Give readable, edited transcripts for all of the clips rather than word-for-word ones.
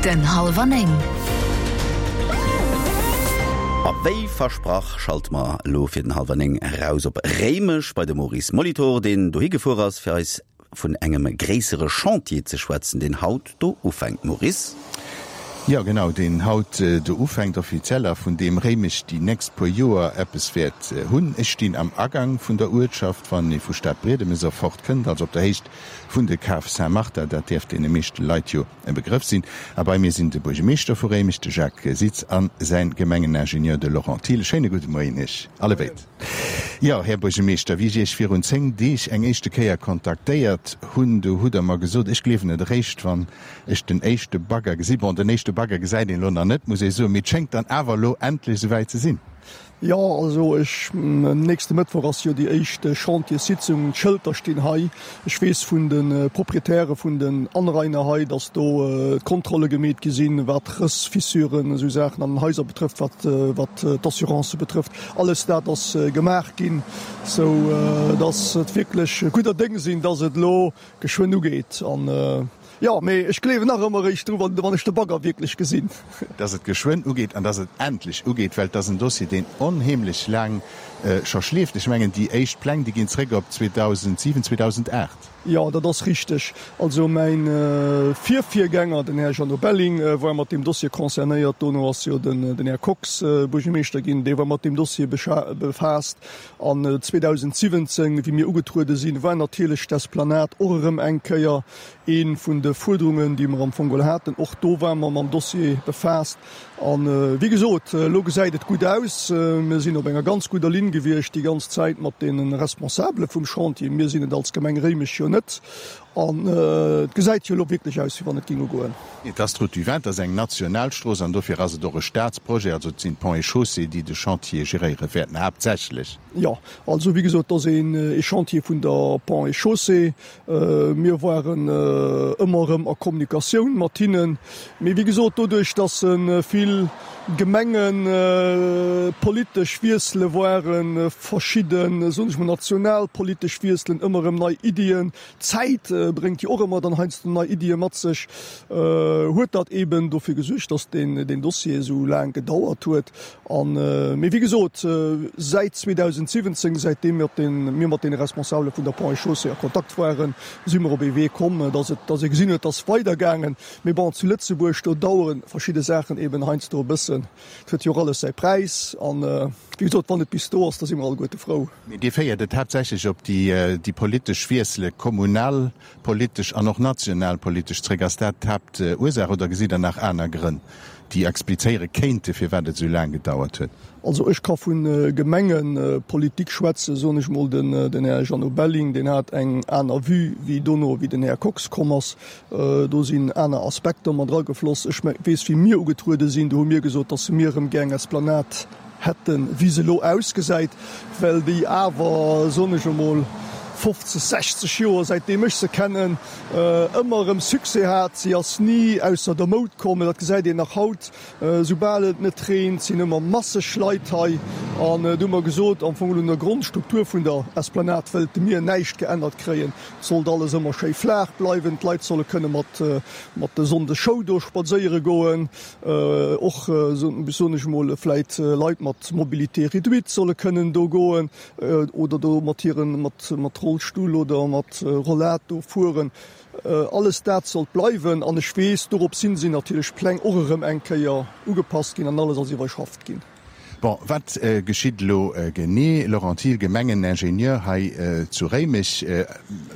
Den Hallwer 9. A wéi versprach schalte mer elo fir den Hallwer 9 eraus op Réimech bei de Maurice Molitor, deen dohi gefuer ass, fir eis vun engem gréissere Chantier ze schwätzen, deen haut do ufänkt. Maurice? Jo, genau, deen haut do ufänkt offiziell a vun deem Réimech déi nächst puer Joer eppes wäert hunn. Ech stinn am Agang vun der Uertschaft, wann ee vu Stadbriedemes erfort kënnt, also op der Héicht vun de Cave Saint-Martin, dat däerft deene meeschte Leit jo e Begrëff sinn. A bei mir sinn de Buergemeeschter vu Réimech, de Jacques Sitz, a säin Gemengeningenieur, de Laurent Thill. E schéine gudde Moien Iech allebéid. Jo, Här Buergemeeschter, wéi ech Iech virun 10 Deeg eng éischte Kéier kontaktéiert hunn, do hutt Der mer gesot, ech gleewen et eréischt, wann ech den éischte Bagger gesinn. Bon, den éischte Bagger gesäit een elo nach net, muss ee soen, mee et schéngt dann awer elo endlech esouwäit ze sinn. Jo, also ech, nächste Mëttwoch ass jo déi éischt Chantierssitzung. D'Schëlter stinn hei. Ech weess vun de Proprietäre vun den Anrainer hei, datt do d'Kontrolle gemeet gi sinn, wat Rëss, Fissuren, esou Saachen an den Haiser betrëfft, wat, wat d'Assurancë betrëfft. Alles dat ass gemaach ginn, sou datt et wierklech gudder Déng sinn, datt et elo geschwënn ugeet. An jo, mee ech gleewen nach ëmmer eréischt dru, wann ech de Bagger wierklech gesinn. Dass et geschwënn ugeet an dass et endlech ugeet, well et ass en Dossier, deen onheemlech laang scho schleeft. Ech mengen, déi éischt Pläng, déi ginn zréck op 2007, 2008. Jo, dat ass richteg. Also mäin Virvirgänger, den Här Jeannot Belling, war mat deem Dossier concernéiert. Dono ass jo den Här Kox Buergermeeschter ginn, dee war mat deem Dossier befaasst. An 2017, wéi mir ugetruede sinn, war natierlech d'Esplanade och erëm eng Kéier ee vun de Fuerderungen, déi mer am Fong geholl haten. Och do ware mer mam Dossier befaasst. A wéi gesot, elo gesäit et gutt aus. Mir sinn op enger ganz gudder Linn gewiescht déi ganz Zäit mat deene Responsabele vum Chantier. Mir sinn et als Gemeng Réimech jo net. An et gesäit jo elo wierklech aus, wéi wann et géing ugoen. Et ass d'Route du Vin, et ass eng national Strooss an dofir ass et och e Staatsprojet. Also et sinn d'Ponts et Chaussées, déi de Chantier geréiere wäerten, haaptsächlech. Jo, also wéi gesot, et ass ee Chantier vun der Ponts et Chaussées. Mir waren ëmmer erëm a Kommunikatioun mat hinnen. Mee wéi gesot, doduerch, datt vill gemengepolitesch Wiessele waren, verschidden, soen ech mol, nationalpolitesch Wiesselen, ëmmer erëm nei Iddien, D'Zäit bréngt jo och ëmmer dann heiansdo nei Iddie mat sech. Huet dat eeben dofir gesuergt, datt deen Dossier esou laang gedauert huet. An, mee wéi gesot, säit 2017, säitdeem mir mat deene Responsabele vun der Ponts et Chaussées a Kontakt waren, si mer op ee Wee komm, datt et, datt ee gesinn huet, et ass weidergaangen. Mee bon, zu Lëtzebuerg, do dauere verschidde Saachen eeben heiansdo e bëssen. Et huet jo och alles säi Präis. An, wéi gesot, wann et bis do ass, da si mer alleguerte frou. Mee Dir féiert et haaptsächlech op déi politesch Wiessele, kommunalpolitesch an och nationalpolitesch, zréck. Ass dat d'Haaptursaach oder gesitt Der nach aner Grënn, déi explizéiere kéinte firwat et esou laang gedauert huet? Also ech ka vu Gemengepolitik schwätzen, soen ech mol. Den Här Jeannot Belling, deen hat eng aner Vue wéi dono, wéi den Här Kox komm ass. Do sinn aner Aspekter mat eragefloss. Ech weess, wéi mir ugetruede sinn, do hu mir gesot, datt mir erëm gär eng Esplanade hätten, wéi se elo ausgesäit, well déi awer, soen ech emol, 50, 60 Joer, säitdeem ech se kennen, ëmmer erëm Succès hat. Si ass ni ausser der Moud komm. Dat gesäit een nach haut, soubal et net reent, sinn ëmmer masseg Leit hei. An du hu mer gesot, am Fong un der Grondstruktur vun der Esplanade wëllte mir näischt geännert kréien. Et sollt alles ëmmer schéi flaach bleiwen, d'Leit solle kënne mat mat de Sonndeshow do spadséiere goen, och, soen ech emol, vläit Leit mat Mobilité réduite solle kënnen do goen oder do mat hiren mat mat Rollstull oder mat Rollator fueren. Alles dat sollt bleiwen an ech weess, dorop sinn si natierlech d'Pläng och erëm eng Kéier ugepasst ginn an alles ass iwwerschafft ginn. Bon, wat geschitt elo genee? Laurent Thill, Gemengeningenieur hei zu Réimech.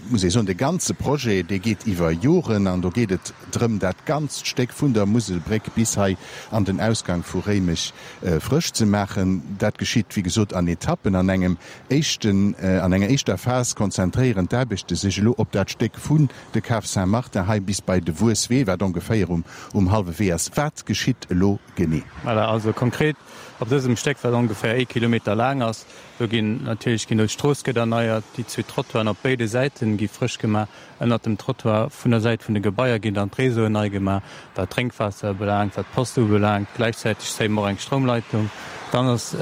Muss ee soen, de ganze Projet, dee geet iwwer Joren an do geet et drëm, dat ganzt Stéck vun der Muselbréck bis hei an den Ausgang vu Réimech frësch ze maachen. Dat geschitt, wéi gesot, an Etappen. An engem éischten, an enger éischter Phas konzentréieren d'Aarbechte sech elo op dat Stéck vun de Cave Saint-Martin hei bis bei de Wueswee, wat ongeféier um hallwe Wee ass. Wat geschitt elo genee? Voilà, also konkret op dësem Stéck, wat ongeféier ee Kilometer laang ass, do ginn natierlech ginn do d'Strooss gëtt erneiert, déi zwee Trottoiren op béide Säite gi frësch gemaach, ënnert dem Trottoir vun der Säit vun de Gebaier ginn dann d'Réseauen nei gemaach, wat d'Drénkwaasser ubelaangt, wat d'Post ubelaangt. Gläichzäiteg zéie mer och eng Stroumleitung. Dann ass.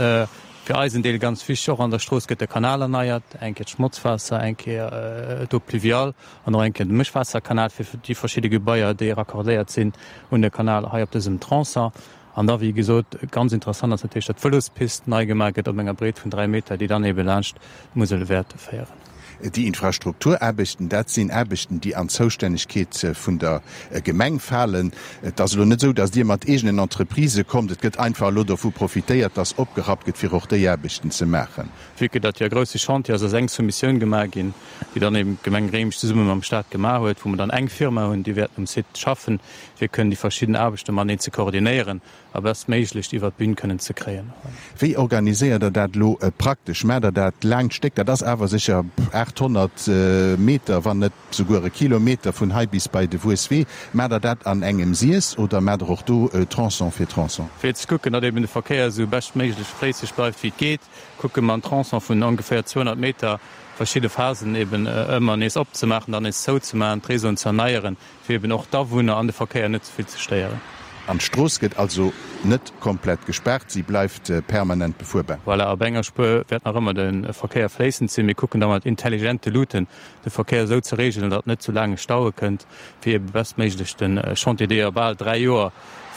Fir eisen Deel ganz wichteg, och an der Strooss gëtt de Kanal erneiert, eng Kéier d'Schmotzwaasser, eng Kéier d'Eau pluviale an och eng Kéier de Mëschwaasserkanal fir déi verschidde Gebaier, déi raccordéiert sinn un de Kanal hei op dësem Tronçon. An da, wéi gesot, ganz interessant ass natierlech, datt d'Vëlospist nei gemaach gëtt op enger Breet vun 3 Meter, déi dann ebe laanscht d'Musel wäert féieren. Déi Infrastrukturaarbechten, dat sinn Aarbechten, déi an d'Zoustännegkeet vun der Gemeng falen. Et ass elo net esou, datt Dir mat eegenen Entreprisë kommt. Et gëtt einfach elo dovu profitéiert, datt opgerappt gëtt, fir och déi Aarbechten ze maachen. Vue que dat jo e grousse Chantier ass, ass eng Soumissioun gemaach ginn, déi dann eben d'Gemeng Réimech zesumme mam Stat gemaach huet, wou mer dann eng Firma hunn, déi wäerten um Site schaffen, fir kënnen déi verschidden Aarbechte mateneen ze koordinéieren a bestméiglecht iwwert d'Bün kënnen ze kréien. Wéi organiséiert Der dat elo praktesch? Maacht Der dat laangt Stéck, dat ass awer sécher 800 Meter, wann net souguer e Kilometer vun hei bis bei de Wuesswee, maacht Der dat an engem Siess oder maacht Der och do Tronçon fir Tronçon? Fir ze kucken, datt eben de Verkéier esou beschtméiglech fléisseg bleift wéi et geet, kucke mer en Tronçon vun ongeféier 200 Meter, verschidde Phasen eben ëmmer nees opzemaachen, dann nees zouzemaachen, d'Réseauen ze erneieren, fir eben och d'Awunner an de Verkéier net ze vill ze stéieren. An d'Strooss gëtt also net komplett gespaart, si bleift permanent befuerbar? Voilà, op enger Spuer wäert nach ëmmer de Verkéier fléissend sinn. Mir kucken da mat intelligente Luuten de Verkéier esou ze reegelen, datt et net zu laange Staue kënnt, fir ebe bestméiglech de Chantier, dee jo bal 3 Joer,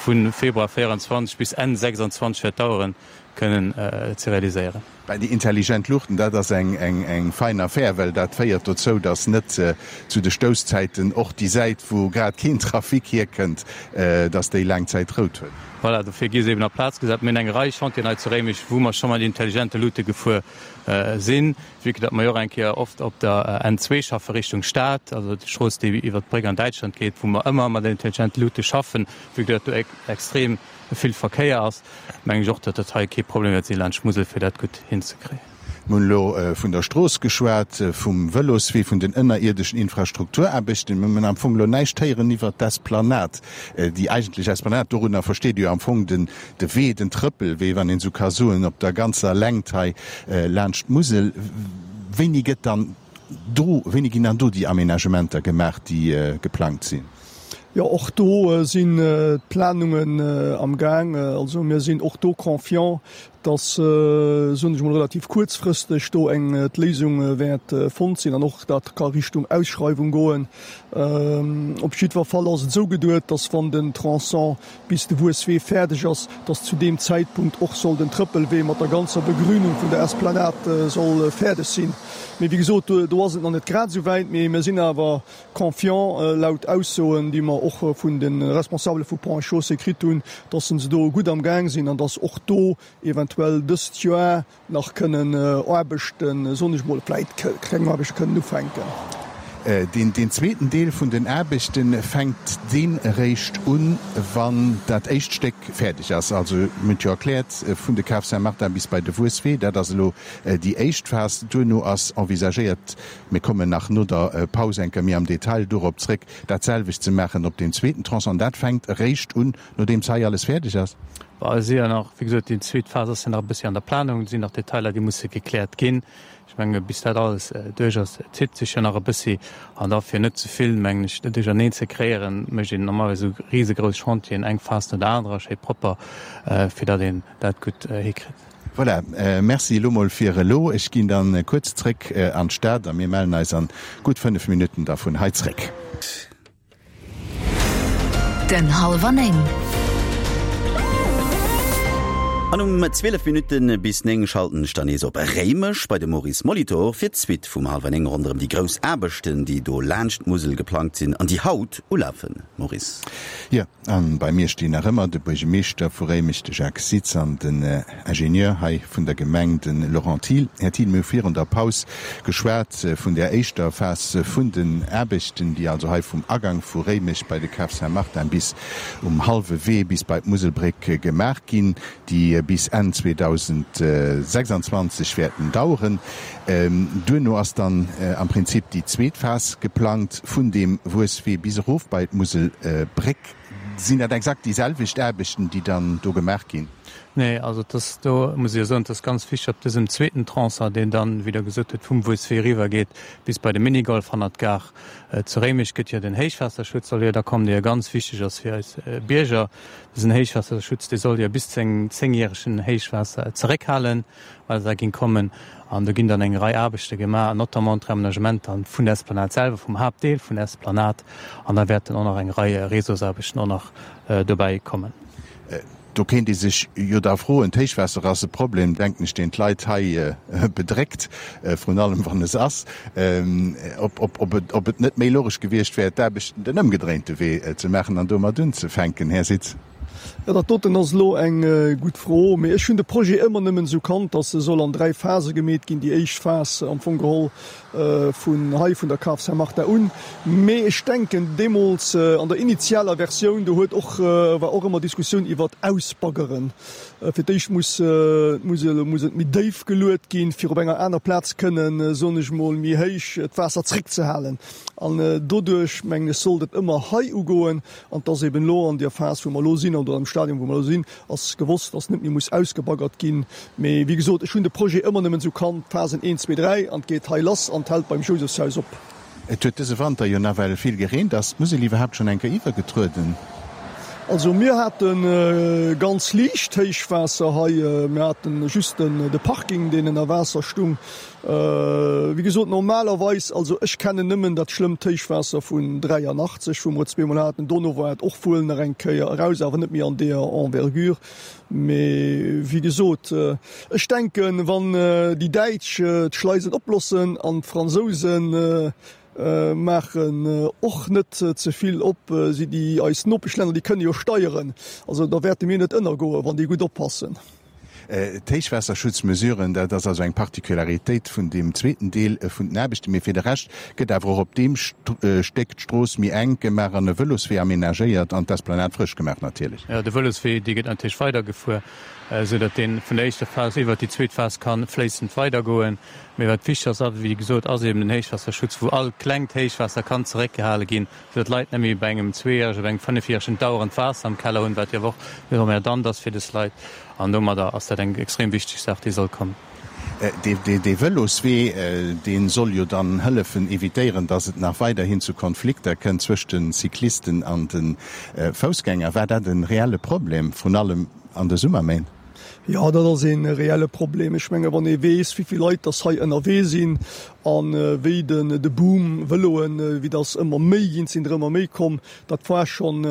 vu Februar 24 bis Enn 26 wäert daueren, kënnen ze realiséieren. Ben, déi intelligent Luuchten, dat ass eng fein Affär, well dat féiert dozou, datt net zu de Stousszäiten och déi Säit, wou grad keen Trafic hierkënnt, datt déi laang Zäit rout huet. Voilà, dofir gi se eben a Plaz gesat. Mir hunn eng Rei Chantieren hei zu Réimech, wou mer scho mat intelligente Luute gefuer sinn, vue que datt mer jo och eng Kéier oft op der N2 schaffe Richtung Stad, also d'Strooss, déi iwwert d'Bréck an Däitschland geet, wou mer ëmmer mat intelligente Luute schaffen, vue que datt do extrem vill Verkéier ass, mengen ech och, datt dat hei kee Problem wäert sinn laanscht d'Musel, fir dat gutt hinzekréien. Mir hunn elo vun der Strooss geschwat, vum Vëloswee, vun den ënnerierdeschen Infrastrukturaarbechten. Mir hunn am Fong elo näischt héieren iwwert d'Esplanade, déi eigentlech Esplanade. Dorunner versteet Dir jo am Fong den de Wee, den Trëppelwee, wann een esou ka soen, op der ganzer Längt hei laanscht d'Musel. Wéini gëtt dann do, wéini ginn dann do déi Aménagementer gemaach, déi geplangt sinn? Jo, och do sinn d'Planungen am Gaang. Also mir sinn och do confiant, dass, soen ech emol, relativ kuerzfristeg do eng d'Léisung wäert fonnt sinn an och dat ka Richtung Ausschreiwung goen. Op jiddwer Fall ass et esou geduet, dass wann den Tronçon bis de Wuesswee fäerdeg ass, dass zu deem Zäitpunkt och soll den Trëppelwee mat der ganzer Begrünung vun der Esplanade soll fäerdeg sinn. Mee wéi gesot, do ass et nach net grad esou wäit, mee mir sinn awer Confiant, laut Aussoen, déi mer och vun de Responsabele vu Ponts et Chaussées kritt hunn, dass se do gutt am Gaang sinn an dass och do eventuell dëst Joer nach kënnen Aarbechten, soen ech mol, vläit kleng Aarbechte kënnen ufänken. Deen zweeten Deel vun den Aarbechte fänkt deen eréischt un, wann dat éischt Stéck fäerdeg ass. Also, mir hunn et jo erkläert, vun de Cave Saint-Martin bis bei de Wuesswee, dat ass elo déi éischt Phas. Duerno ass envisagéiert, Mir kommen nach no der Paus eng Kéier méi am Detail dorop zréck, dat selwecht ze maachen op deem zweeten Tronçon. Dat fänkt eréischt un, nodeems hei alles fäerdeg ass. Bon, et si jo nach, wéi gesot, déi zweet Phas ass jo nach e bëssi an der Planung. Et sinn nach Detailer, déi musse gekläert ginn. Ech menge bis dat alles duerch ass, zitt sech jo nach e bëssi. An da fir net ze vill, mengen ech, duercherneen ze kréieren, mécht een normalerweis esou risegrouss Chantieren, eng Phas no der anerer, schéi propper, fir datt een dat gutt hikritt. Voilà, merci elo mol fir elo. Ech ginn dann kuerz zréck an d'Stad a mir mellen eis an gutt 5 Minutten da vun hei zréck. Den hallwer 9. An um 12 Minutten bis 9 schalten ech dann nees op Réimech bei de Maurice Molitor fir d'Suite vum hallwer 9 ronderëm déi grouss Aarbechten, déi do laanscht d'Musel geplangt sinn an déi haut ulafen. Maurice. Jo, an bei mir stinn nach ëmmer de Buergemeeschter vu Réimech, de Jacques Sitz, an den Ingenieur hei vun der Gemeng, de Laurent Thiel. Här Thiel, mir hu virun der Paus geschwat vun där éischter Phas vun den Aarbechten, déi also hei vum Agang vu Réimech bei de Cave Saint-Martin bis um hallwe Wee bis bei d'Muselbréck gemaach ginn, déi bis Enn 2026 wäerten daueren. Duerno ass dann am Prinzip déi zweet Phas geplangt, vun deem Wuesswee bis erof bei d'Muselbréck. Sinn dat exakt déi selwecht Aarbechten, déi dann do gemaach ginn? Nee, also et ass, do muss ech jo soen, et ass ganz wichteg op dësem zweeten Tronçon, deen dann, wéi Der gesot hutt, vum Wuesswee eriwwer geet bis bei de Minigolf hannert d'Gare zu Réimech, gëtt jo den Héichwaasserschutz soll jo da kommen, dee jo ganz wichteg ass fir eis Bierger. Dësen Héichwaasserschutz, dee soll jo bis zu engem zéngjäregen Héichwaasser zeréckhalen, wat da géing kommen. An do ginn dann eng Rei Aarbechte gemaach, notamment d'Reamenagement dann vun der Esplanade selwer, vum Haaptdeel vun der Esplanade. An da wäerten och nach eng Rei Réseausaarbechten och nach dobäi kommen. Do kéint ee sech jo da froen, d'Héichwaasser ass e Problem, denken ech, deen d'Leit hei bedréckt, vrun allem wann es ass, ob et net méi logesch gewiescht wär, d'Aarbechten den ëmgedréinte Wee ze maachen an domat unzefänken, Här Sitz. Jo, dat doten ass elo eng gutt Fro. Mee ech hunn de Projet ëmmer nëmmen esou kannt, datt e soll an 3 Phase gemeet ginn. Déi éischt Phas am Fong geholl vun hei vun der Cave Saint-Martin un. Mee ech denken, deemools an der initialer Versioun, do huet och, war och ëmmer Diskussioun iwwert Ausbaggeren. Fir d'éischt muss, muss, muss et méi déif geluet ginn, fir op enger aner Plaz kënnen, soen ech mol, méi héich d'Waasser zréckzehalen. An doduerch, mengen ech, sollt et ëmmer hei ugoen. An et ass eben elo an där Phas, wou mer elo sinn, oder am Stadium, wou mer elo sinn, ass gewosst, dass net méi muss ausgebaggert ginn. Mee wéi gesot, ech hunn de Projet ëmmer nëmmen esou kannt, Phasen 1, 2, 3, an et geet hei lass an et hält beim Jousefshaus op. Et huet dëse Wanter jo nawell vill gereent. Ass d'Musel iwwerhaapt schonn eng Kéier iwwergetrueden? Also mir hate ganz liicht Héichwaasser hei. Mir hate just de Parking, deen ënner Waasser stung. Wéi gesot, normalerweis, also ech kennen nëmmen dat schlëmmt Héichwaasser vun 83, wou mer et zweemol haten. Dono war et och wuel nach eng Kéier eraus, awer net méi an deeër Envergure. Mee wéi gesot, ech denken, wann déi Däitsch d'Schleisen oplossen an d'Fransousen maachen och net ze vill op, si déi eis Nopeschlänner, déi kënne jo steieren, also da wäerte mir net ënnergoen, wann déi gutt oppassen. D'Héichwaasserschutzmesuren, dat ass also eng Particularitéit vun deem zweeten Deel vun den Aarbechten. Mee fir de Rescht gëtt awer och op deem Stéck d'Strooss méi enk gemaach an e Vëloswee amenagéiert an d'Esplanade frësch gemaach natierlech. Jo, de Vëloswee, dee gëtt natierlech weidergefuer, esou datt dee vun der éischter Phas iwwert déi zweet Phas ka fléissend weidergoen. Mee wat wichteg ass, wéi gesot, ass eben den Héichwaasserschutz, wou all klengt Héichwaasser kann zeréckgehale ginn. Fir datt d'Leit net méi bei engem zweejäregen, bei engem fënnefjäregen dauernd Waasser am Keller hunn, wat jo awer och emmerdant ass fir des Leit. An domadder ass dat eng extrem wichteg Saach, déi soll kommen. Dee Vëloswee, dee soll jo dann hëllefen evitéieren, datt et nach weiderhin zu Konflikter kënnt zwëscht de Cyclisten an de Foussgänger. War dat e reelle Problem, vrun allem an de Summerméint? Jo, dat ass ee reelle Problem. Ech menge wann ee weess, wéi vill Leit datt hei ënnerwee sinn a wéi den de Boom Vëloen, wéi datt ëmmer méi ginn, sinn der ëmmer méi komm, dat war schonn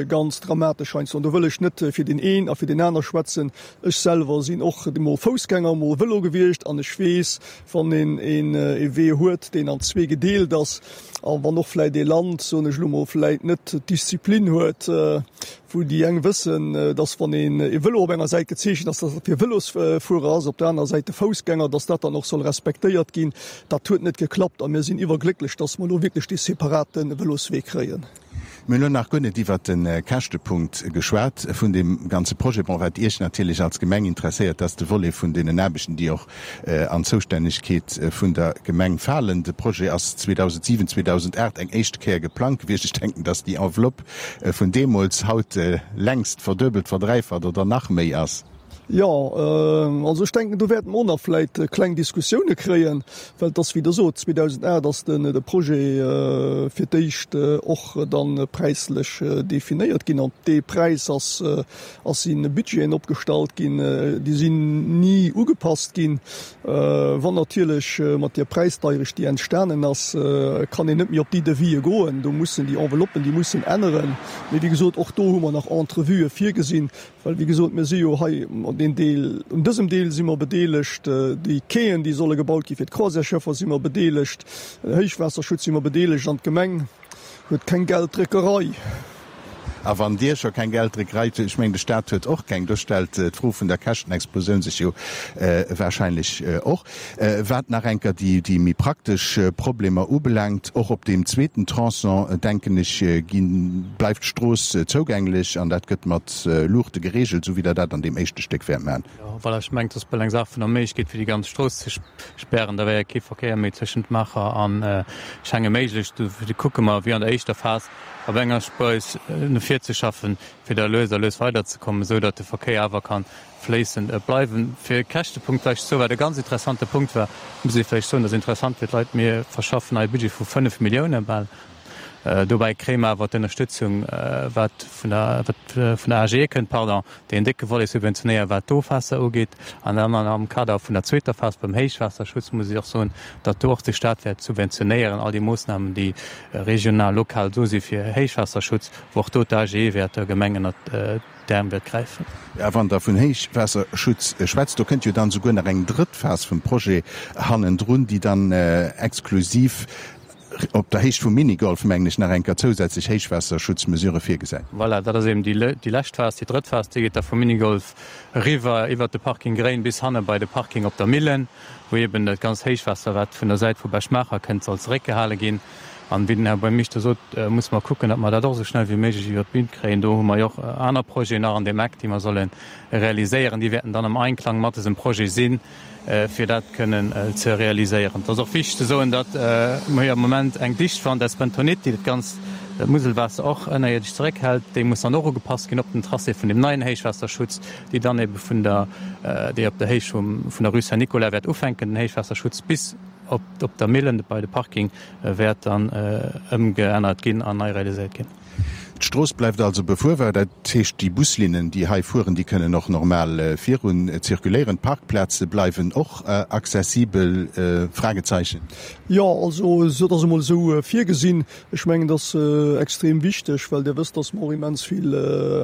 ganz dramatesch heiansdo. An do wëll ech net fir deen een a fir deen aner schwätzen. Ech selwer sinn och mol Foussgänger, mol Vëlo gewiescht an ech weess, wann een ee Wee huet, deen an zwee gedeelt ass a wann och vläicht ee Land, soen ech elo mol, vläicht net d'Disziplin huet, wou déi eng wëssen, dass wann een e Vëlo op enger Säit gezeechent ass, dass dat fir Vëlosfuerer ass, op der anerer Säit de Foussgänger, dass dat dann och soll respektéiert ginn. Dat huet net geklappt a mir sinn iwwerglécklech, dass mer elo wierklech dee separate Vëloswee kréien. Mir hunn elo nach guer net iwwert de Käschtepunkt geschwat vun deem ganze Projet. Bon, wat Iech natierlech als Gemeng interesséiert, dat ass de Volet vun deenen Aarbechten, déi och an d'Zoustännegkeet vun der Gemeng falen. De Projet ass 2007, 2008 eng éischte Kéier geplangt gewiescht. Ech denken, dass déi Enveloppe vun deemools haut längst verduebelt, verdräifacht oder nach méi ass. Jo, also ech denken, do wäerte mer och nach vläit kleng Diskussioune kréien, well et ass, wéi Der sot, 2008 ass de Projet fir d'éischt och da präislech definéiert ginn. An dee Präis ass ass si Budgeten opgestallt ginn, déi sinn ni ugepasst ginn. Wann natierlech mat där Präisdeierecht, déi entstanen ass, kann een net méi op déi Devisë goen. Do mussen déi Enveloppen, déi mussen änneren. Mee wéi gesot, och do hu mer nach Entrevuë virgesinn, well wéi gesot, mir si jo hei an deem Deel, un dësem Deel si mer bedeelegt, déi Quaien, déi solle gebaut gi fir d'Croisièresschëffer, si mer bedeelegt, Héichwaasserschutz si mer bedeelegt an d'Gemeng huet keng Gelddréckerei. A wann Dir scho keng Gelddréckerei hutt, ech mengen de Staat huet och keng, do stellt d'Fro vun der Käschtenexplosioun sech jo wahrscheinlech och. Wat nach enker déi méi praktesch Problemer ubelaangt, och op deem zweeten Tronçon, denken ech, ginn, bleift d'Strooss zougänglech an dat gëtt mat Luuchte geregelt, esou wéi Der dat an deem éischte Stéck wäert maachen. Jo, voilà, ech mengen, et ass bal eng Saach vun der Méiglechkeet, fir déi ganz Strooss ze spären. Da wär jo kee Verkéier méi tëschent Maacher a Schengen méiglech. Do kucke mer, wéi an der éischter Phas op enger Spuer no vir. virzeschaffen, fir da lues a lues weiderzekommen, esou datt de Verkéier awer ka fléissend bleiwen. Fir e Käschtepunkt vläicht ze soen, wat e ganz interessante Punkt war, muss ee vläicht soen, dat ass interessant fir d'Leit, mir verschaffen hei e Budget vu 5 Milliounen bal. Dobäi kréie mer awer d'Ënnerstëtzung, wat vun der, wat vun der AGE kënnt, pardon, déi en décke Volet subventionéiert, wat d'Ofwaasser ugeet. An dann am Kader vun der zweeter Phas beim Héichwaasserschutz muss ech och soen, datt do och de Stat wäert subventionéieren all déi Moossnamen, déi regional, lokal do si fir Héichwaasserschutz, wou och do d'AGE wäert der Gemeng ënnert d'Äerm wäert gräifen. A wann Der vun Héichwaasserschutz schwätzt, do kënnt jo dann souguer nach eng drëtt Phas vum Projet hannendrun, déi dann exklusiv op der Héicht vum Minigolf, mengen ech, nach eng Kéier zousätzlech Héichwaasserschutzmesurë virgesäit. Voilà, dat ass eben déi lescht Phas. Déi drëtt Phas, déi geet da vum Minigolf eriwwer iwwert de Parking Gréin bis hanne bei de Parking op der Millen, wou eben dat ganzt Héichwaasser, wat vun der Säit vu Bech-Maacher kënnt, soll zeréckgehale ginn. An wéi den Här Buergermeeschter sot, musse mer kucken, datt mer dat och esou schnell wéi méiglech iwwert d'Bün kréien. Do hu mer jo och aner Projeten nach an deem Eck, déi mer solle realiséieren. Déi wäerten dann am Einklang mat dësem Projet sinn, fir dat kënnen ze realiséieren. Et ass och wichteg ze soen, datt mer jo am Moment eng Dichtwand aus Bentonit, déi dat ganzt Muselwaasser och ënnerierdesch zeréckhält, déi muss dann och ugepasst ginn op den Tracé vun dem neien Héichwaasserschutz, déi dann ebe vun der, déi op der Héicht vum, vun der Rue Saint-Nicolas wäert ufänken, den Héichwaasserschutz bis op, op der Millen bei de Parking wäert dann ëmgeännert ginn an nei realiséiert ginn. D'Strooss bleift also befuerbar, dat heescht déi Buslinnen, déi hei fueren, déi kënnen och normal virun zirkuléieren. D'Parkplaze bleiwen och accessibel? Fragezeichen. Jo, also dat ass emol esou virgesinn. Ech mengen, dat ass extrem wichteg, well Dir wësst, dass mer och immens vill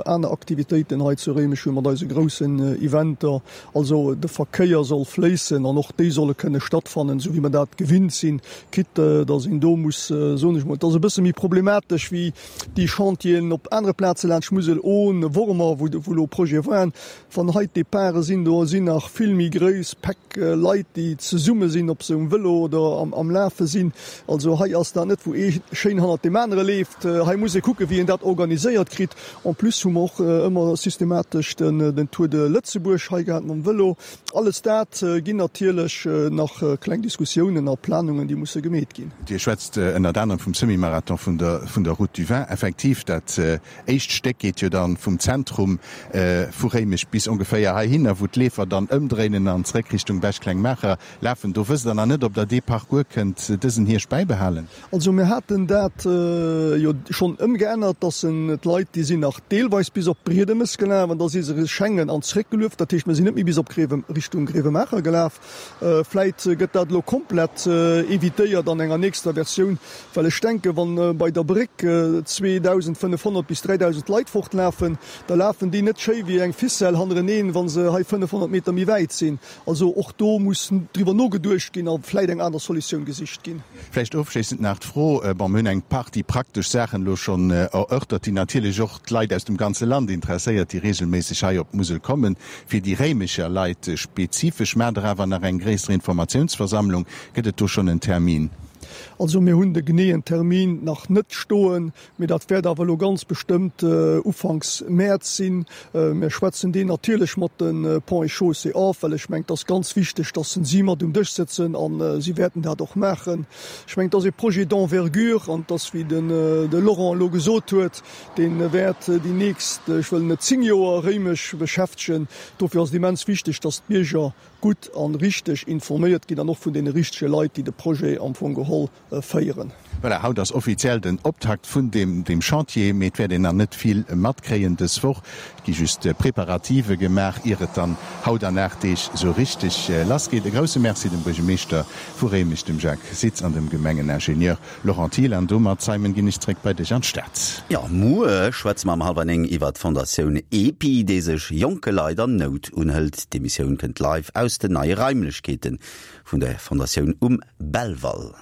aner Aktivitéiten hei zu Réimech hu mat eise groussen Eventer. Also de Verkéier soll fléissen an och déi solle kënne stattfannen, esou wéi mer dat gewinnt sinn, quitte dass een do muss, soen ech mol, et ass e bësse méi problematesch wéi déi Chantieren op anere Plaze laanscht d'Musel, Ohn, Wormer, wou elo Projete waren. Wann hei d'Departe sinn, do sinn nach vill méi grouss Päck Leit, déi zesumme sinn, ob se um Vëlo oder am Lafe sinn. Also hei ass dat net, wou ee schéin hannert deem anere leeft. Hei muss ee kucken, wéi een dat organiséiert kritt. En plus hu mer och ëmmer systematesch den Tour de Lëtzebuerg hei gehat mam Vëlo. Alles dat ginn natierlech nach kleng Diskussiounen a Planungen, déi musse gemeet ginn. Dir schwätzt ënnert anerem vum Semi-Marathon vun der Route du Vin. Effektiv, dat éischt Stéck geet jo dann vum Zentrum vu Réimech bis ongeféier heihinner, wou d'Leefer dann ëmdréinen an zréck Richtung Bech-Klengmaacher lafen. Do wësst Der nach net, ob Der dee Parcours kënnt dësen Hierscht bäibehalen? Also mir haten dat jo schonn ëmgeännert, dass en d'Leit, déi sinn nach deelweis bis op Briedemes gelaf an da si se Schengen an zréck geluef. Dat heescht, mir sinn net méi bis op Grewe Richtung Grevenmacher gelaf. Vläit gëtt dat elo komplett evitéiert an enger nächster Versioun, well ech denken, wann bei der Bréck 2.500 bis 3.000 Leit fortlafen, da lafen déi net schéi wéi eng Ficelle hannereneen, wa se hei 500 Meter méi wäit sinn. Also och do muss driwwer nogeduecht ginn a vläit eng aner Solutioun gesicht ginn. Vläicht ofschléissend nach d'Fro, bon, mir hunn eng Partie praktesch Saachen elo schonn erörtert, déi natierlech och d'Leit aus dem ganze Land interesséiert, déi regelméisseg hei op d'Musel kommen. Fir déi Réimecher Leit spezifesch maacht Der awer nach eng gréisser Informatiounsversammlung. Gëtt et do schonn en Termin? Also mir hunn de geneeën Termin nach net stoen. Mee dat wäert awer elo ganz bestëmmt ufanks Mäerz sinn. Mir schwätzen deen natierlech mat de Ponts et Chaussées of, well ech mengen, et ass ganz wichteg, dass si mat um Dësch sëtzen a si wäerten dat och maachen. Ech mengen, et ass e Projet d'envergure an et ass, wéi den de Laurent elo gesot huet, dee wäert déi nächst, ech wëll net zéng Joer Réimech beschäftegen. Dofir ass et immens wichteg, dass d'Bierger gutt a richteg informéiert ginn an och vun deene richtege Leit, déi de Projet am Fong geholl féieren. Voilà, haut ass offiziell den Optakt vun deem Chantier, mee et wäert een nach net vill matkréien dës Woch. Et gi just Preparative gemaach, ier et dann haut an 8 Deeg sou richteg lass geet. E grousse Merci dem Buergemeeschter vu Réimech, dem Jacques Sitz, an dem Gemengeningenieur Laurent Thiel. An domat, Simon, ginn ech zréck bei dech an d'Stad. Jo, muer schwätze mer am hallwer 9 iwwer d'Fondatioun EPI, déi sech jonke Leit an Nout unhëlt. D'Emissioun kënnt live aus den neie Raimlechkeete vun der Fondatioun um Belval.